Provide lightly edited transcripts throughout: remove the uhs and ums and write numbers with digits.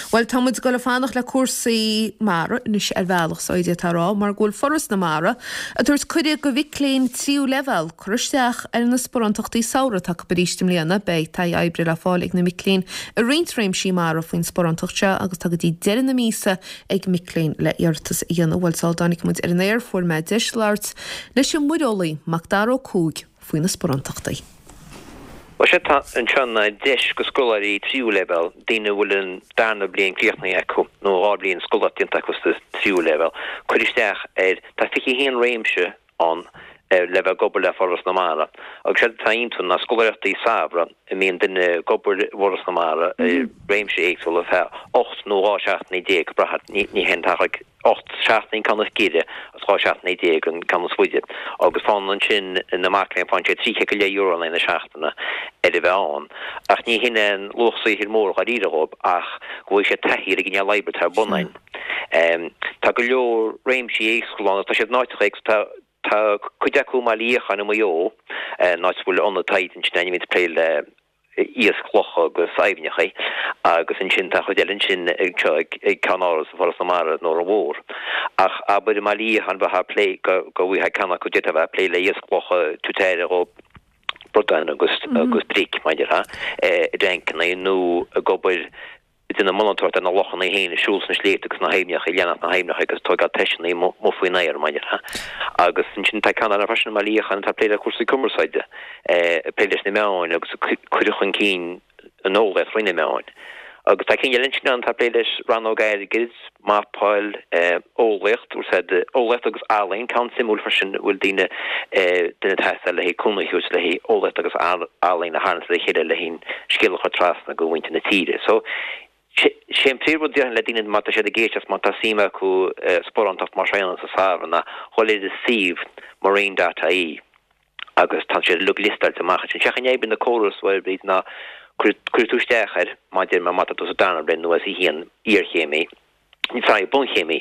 Bhuel, tá muid ag dul ag fanacht le cúrsaí mara anois ar bhealach, so d'fhéadfá a rá, mar go bhfuil Foras na Mara ag tabhairt cuireadh go mhic léinn tríú leibhéal cur isteach ar na sparántachtaí samhraidh atá acu arís i mbliana. Beidh taithí oibre le fáil ag na mic léinn i roinnt réimsí mara faoin sparántacht seo agus tá go dtí deireadh na míosa ag mic léinn le iarratas a dhéanamh. Bhuel, sula dtáinig muid ar an aer fuair mé deis labhairt leis an muireolaí, Macdara Ó Cuaig, faoi na sparántachtaí. Bhuel, sé atá anseo ná deis go scoláirí tríú leibhéal, daoine a bhfuil an darna bliain críochnaithe acu nó 2 bhliain scoláireacht déanta acu sa tríú leibhéal, cur isteach ar, tá 21 réimse ann le bheith ag obair le Foras na Mara agus séard atá iontu ná scoláireachtaí samhraidh a mbíonn duine ag obair i bhForas na Mara i réimse éagsúla ar feadh 8 nó 12 seachtainí, ag brath, ní hé an t-achar 8 seachtain an ceann is giorra agus 12 seachtaine an ceann is faide agus faigheann ansin na mac léinn faigheann siad €30 in aghaidh na seachtaine ar a bheith ann. Ach ní hin aon luach saothair mór dháiríre dhóibh ach go bhfaighidh siad taithí ar an gcineál oibre atá ar bun ann. Tá go leor réimsí éagsúla ann agus tá siad in áiteacha éagsúla. Tá cuid acu i mBaile Fhiacháin i Maigh Eo, an áit a bhfuil ionad taighde ansin a bhíonn ag plé le iasc locha agus aibhneacha agus ansin tá chuid eile ansin anseo ag Ceann Áras Foras na Mara in Órán Mhór. Ach abair i mBaile Fhiacháin bheifeá ag plé go go bhfaighfeá ceann acu d'fhéadfá bheith ag plé le iasc locha tabhairt aire dhó bradáin agus agus bric mar a déarfá i dtancanna nó ag obair ag déanamh monatóireacht ar na lochanna féin, ag siúl sna sléibhte agus sna haibhneacha, ag leanacht na haibhneacha agus tógáil toiseanna amuigh faoin aer, mar a déarfá. Agus ansin tá ceann eile freisin i mBaile Fhiacháin atá ag plé le cúrsaí cumarsáide, ag plé leis na meáin agus ag cur chun cinn an eolaíocht thrí na meáin. Agus tá cinn eile ansin ann atá ag plé leis rannóg airgid, mapáil, eolaíocht, úsáid eolaíocht agus ealaín, ceann suimiúil freisin a bhfuil daoine, duine ag teastáil le haghaidh cúnamh a thabhairt le haghaidh eolaíocht agus ealaín a tharraingt le chéile le haghaidh an scéal a chur trasna go mhuintir na tíre. So, sé an príomhrud déarfainn le daoine má tá siad ag éisteacht, má tá suim acu sparántacht mar seo a dhéanamh sa samhradh ná dhul ar an suíomh marine.ie agus tá siad uilig liostáilte amach ansin. Sé an chaoi a n-oibríonn an córas a Bhríd ná cuirfidh tú isteach air má deir má tá tú sa darna bliain nó S1 iarchéimí, sorry, bunchéimí,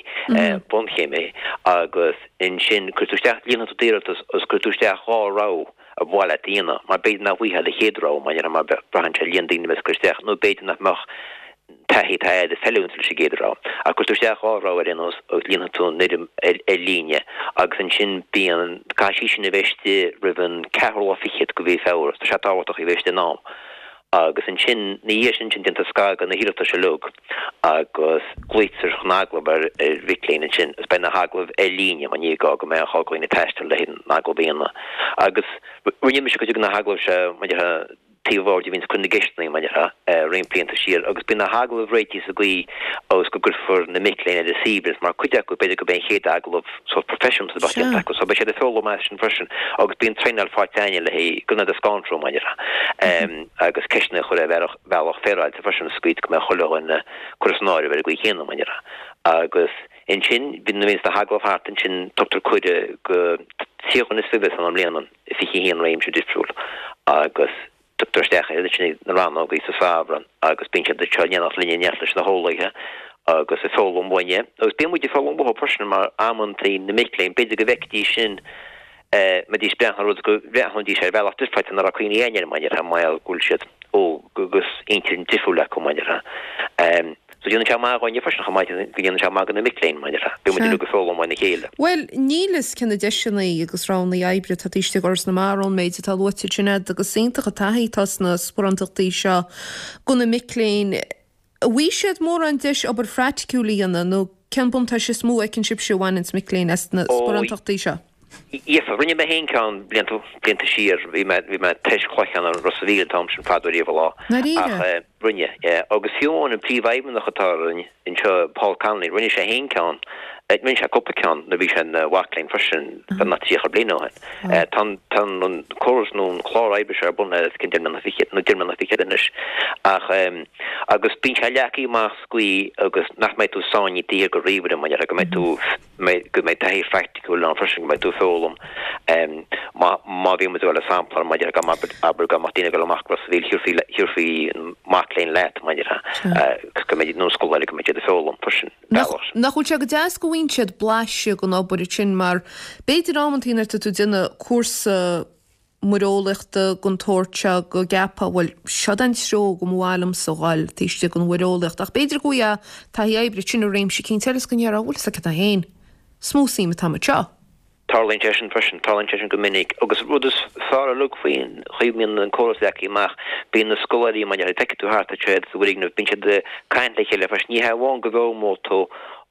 bunchéimí agus ansin cuirfidh tú isteach, líonfaidh tú d'iarratas agus cuirfidh tú isteach 2 rogha ar mhaith leat a dhéanamh mar b'fhéidir nach bhfaighfeá do chéad rogha mar mar braitheann sé ar líon daoine a bheas ag cur isteach nó b'fhéidir nach mbeadh taithí atá agat ag feiliúint leis an gcéad rogha. Ach cuirfidh tú isteach 2 rogha ar aon nós agus líonfaidh tú an fhoirm ar líne agus ansin bíonn, caithfidh sí sin a bheith istigh roimh an ceathrú lá fichead de mhí Feabhra. Tá sé tábhachtach í a bheith istigh in am. Agus ansin, ina dhiaidh sin ansin déantar scagadh na hiarratais uilig agus glaoitear chun agallamh ar mhic léinn ansin agus beidh na hagallaimh ar líne mar ní gá go mbeadh gá do dhaoine taisteal le haghaidh an agallamh a dhéanamh. Agus rinne mise cuid de na hagallaimh seo mar a déarfá taobh bhoird a bhíonns ag cur na gceisteanna mar a déarfá, roinnt blianta siar agus bíonn na hagallaimh réitithe sa gcaoi agus go gcuirfear na mic léinn ar a suaimhneas mar cuid acu b'fhéidir gurb é an chéad agallamh sórt proifisiúnta a bheadh déanta acu so beidh siad ag foghlaim as sin freisin agus bíonn traenáil faighte againne le haghaidh gan iad a scanrú mar a déarfá agus ceisteanna a chur ar bhealach bealach féaráilte freisin sa gcaoi go mbeadh chuile dhuine curtha san áireamh ar an gcaoi chéanna mar a déarfá agus ansin bíonn nuair a bhíonns na hagallaimh thart ansin tugtar cuireadh go 30 dhuine is fiche san i mbliana. i 21 réimse difriúil agus tugtar isteach iad ansin ag na rannógaí sa samhradh agus bíonn siad anseo in éineacht linn in éineacht leis na heolaithe agus ag foghlaim uainne agus bíonn muid ag foghlaim uathu freisin mar amantaí na mic léinn b'fhéidir go bhfeicfidís sin mbeidís ag breathnú ar rud go mbreathnóidís ar bhealach difriúil ná raibh cuimhne againn air mar a déarfá mar gheall go bhfuil siad óg agus intinn difriúil acu mar a déarfá. So déanann sé maith dhúinne freisin chomh maith go ndéanann sé maith do na mic léinn mar a déarfá. Bíonn muid uilig ag foghlaim óna chéile. Bhuel, níl fhios cé na deiseanna agus roghanna oibre atá taobh istigh d'Fhoras na Mara ón méid atá luaite ansin agat agus is iontach an taithí atá sna sparántachtaí seo do na mic léinn. An bhfaighidh siad mórán deis obair phraiticiúil a dhéanamh nó cén buntáiste is mó a fheiceann sibhse a bhaineanns mic léinn as na sparántachtaí seo? Gheofá. Rinne mé féin ceann blianta, blianta siar. Bhí mé, bhí mé ag tois cloiche i Ros a' Mhíl an t-am sin fadó riamh an lá. Ndáiríre? Ach rinne, yeah. Agus fiú amháin an príomhfheidhmeannach atá orainn anseo, Paul Connolly, rinne sé féin ceann, rinne sé cúpla ceann nuair a bhí sé ina mhac léinn freisin, beagnach 30 bliain ó shin. Tá an, tá an córas nó an clár oibre seo ar bun le os cionn deich mbliana fichead, nó deich mbliana fichead anois. Ach, agus bíonn sé leagtha amach sa gcaoi agus nach mbeidh tú sáinnithe taobh thiar de ríomhaire, mar a déarfá, go mbeidh tú, go mbeidh taithí phraiticiúil ann freisin, go mbeidh tú ag foghlaim. Má má bhí muid ag dul le sampla mar a déarfá go mbeadh abair go mbeadh daoine ag dul amach go Ros a' Mhíl thiúrfaí thiúrfaí an mac léinn leat mar a déarfá go mbeidh nó scoláire go mbeidh siad ag foghlaim freisin Nach bealach sin. Nach bhfuil sé go deas go bhfaigheann siad blaiseadh den obair ansin mar b'fhéidir amantaí nuair atá tú ag déanamh cúrsa. muireolaíochta den tsórt seo go gceapfá, bhuel, seod an treo go mba mhaith liomsa dhul, taobh istigh den mhuireolaíocht. Ach b'fhéidir go bhfaighfeá taithí oibre ansin i réimse eicínt eile is go ndéarfá, bhfuil fhios agat cad é féin, is mó suim atá agam anseo. Tarlaíonn sé sin freisin, tarlaíonn sé sin go minic. Agus rud is fearr uilig faoin chaoi a mbíonn an córas leagtha amach, bíonn na scoláirí, mar a feicfidh tú thart, tá siad sa bhfoirgneamh, bíonn siad ag caint le chéile freisin. Ní hé amháin go bhfoghlaimeoidh tú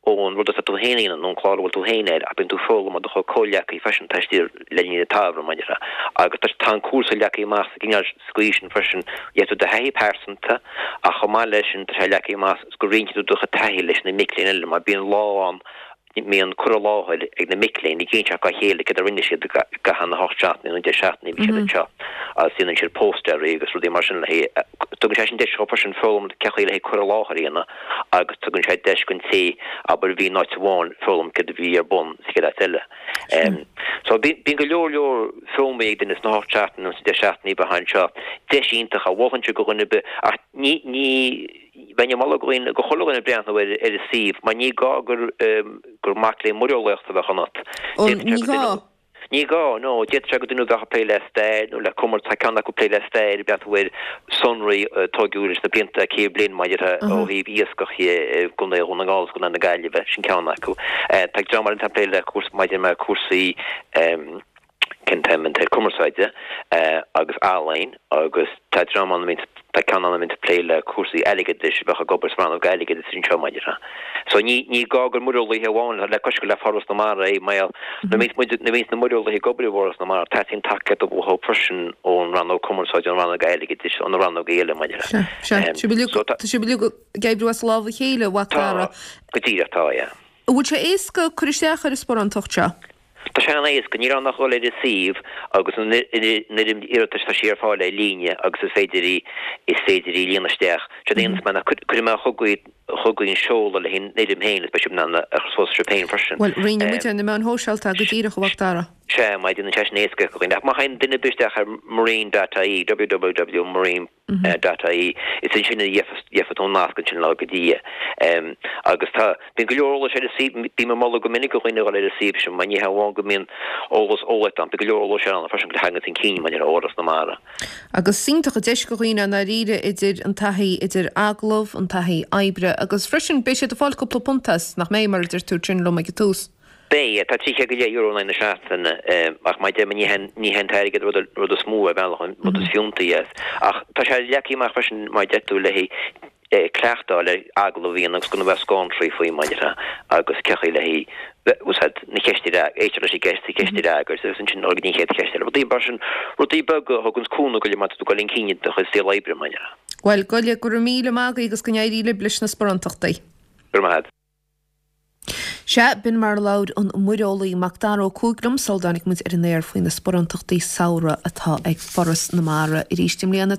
ón rud atá tú féin a dhéanamh nó an clár a bhfuil tú féin air ach bíonn tú ag foghlaim ó do chuid comhghleacaithe freisin taobh istigh le linn an tsamhraidh, mar a déarfá. Agus tá tá an cúrsa leagtha amach sa gcineál sa gcaoi sin freisin, gheobhaidh tú do thaithí pearsanta ach chomh maith leis sin tá sé leagtha amach go roinnfidh tú do chuid taithí leis na mic léinn eile mar bíonn lá ann mbíonn cur i láthair ag na mic léinn ag inseacht dá chéile céard a rinne siad i gcaitheamh na hocht seachtainí nó 10 seachtainí a bhí siad anseo agus déanann siad póstaerí agus rudaí mar sin le haghaidh tugann sé sin deis dhóibh freisin foghlaim cén chaoi le haghaidh cur i láthair a dhéanamh agus tugann sé deis don té abair a bhí in áit amháin foghlaim céard a bhí ar bun sa chéad áit eile. So bíonn go leor leor foghlamtha ag duine sna hocht seachtainí nó sna 10 seachtainí a bheith anseo. Deis iontach a mholfainnse do dhuine ar bith ach ní ní Bheinn ag moladh go dhaoine, go chuile dhuine breathnú ar ar an suíomh mar ní gá gur gur mac léinn muireolaíochta a bheadh ionat. Ó, ní gá? Ní gá, no. D'fhéadfadh sé gur duine a bheadh ag plé le stair nó le cumar, tá ceann acu ag plé le stair, ag breathnú ar sonraí a tóigeadh leis na blianta, 100 bliain maidir ó thaobh iascach i gContae Dhún na nGall agus Contae na Gaillimhe, sin ceann acu. Tá dream eile atá ag plé le cúrsaí, maidir le cúrsaí, cén t-ainm an t-air cumarsáide agus ealaín agus tá dream ann a bhíonn tá ceann ann a bhíonn ag plé le cúrsaí airgeadais a bheadh ag obair sa rannóg airgeadais anseo mar a déarfá. So ní ní gá gur muireolaithe amháin le cois gur le Foras na Mara é mar nuair a bhíonns muid nuair a bhíonns na muireolaithe ag obair i bhForas na Mara teastaíonn tacaíocht uathu freisin ón rannóg cumarsáide ón rannóg airgeadais ó na rannóga eile mar a déarfá. Sea, sea. Sibh uilig So tá tá sibh uilig ag oibriú as lámh a chéile, a Mhac tá Dara. go díreach tá, yeah. An bhfuil sé éasca cur isteach ar an sparántacht seo? Tá sé an-éasca, níl ann ach dul ar an suíomh agus an fhoirm iarratais, tá sí ar fáil ar líne agus is féidir í, is féidir í a líonadh isteach. Séard a dhéanfas mé ná cuirfidh mé chugaibh, chugaibh an seoladh le haghaidh an fhoirm féin agus beidh sibh in ann a chur suas sibh féin freisin. Bhuel, roinnfidh muid ar na meáin shóisialta go díreach, a Mhac Dara. Sea, má déanann sé sin éasca do dhaoine. Ach má théann duine ar bith isteach ar marine.ie, www.marine. .ie, is ansin a gheobhaidh tú an nasc ansin le go dtí é. Agus tá, bíonn go leor eolais ar an suíomh, bím ag moladh go minic do dhaoine a dhul ar an suíomh sin mar ní hé amháin go mbíonn eolas eolaíochta ann, bíonn go leor eolais ann freisin go dtagann chun cinn maidir le Fhoras na Mara. Agus is iontach an deis do dhaoine i ndáiríre idir an taithí idir agallamh, an taithí oibre agus freisin beidh siad ag fáil cúpla punt as, nach mbeidh, mar a deir tú ansin liom ag an tús. Beidh, tá €300 in aghaidh na seachtaine, ach mar a deir mé, ní hé ní hé an t-airgead rud rud is mó ar bhealach, an rud is fiúntaí as. Ach tá sé leagtha amach freisin, mar a deir tú, le haghaidh cleachtadh le agallamh a dhéanamh agus gan a bheith scanraithe faoi, mar a déarfá, agus cén chaoi le haghaidh úsáid na ceiste a éisteacht leis an gceist, an cheist a fhreagairt agus ansin dul go dtí an chéad cheist eile. Rudaí mar sin, rudaí beaga a thuganns cúnamh go leor má tá tú ag dul chun cinn i do chuid saol oibre, mar a déarfá. Bhuel, go go raibh míle maith agaibh agus go n-éirí libh leis na sparántachtaí. Go raibh maith agat. Sea, b'in mar a labhair an muireolaí Mac Dara Ó Cuaig liom sula dtáinig muid ar an aer faoi na sparántachtaí samhraidh atá ag Foras na Mara arís i mbliana.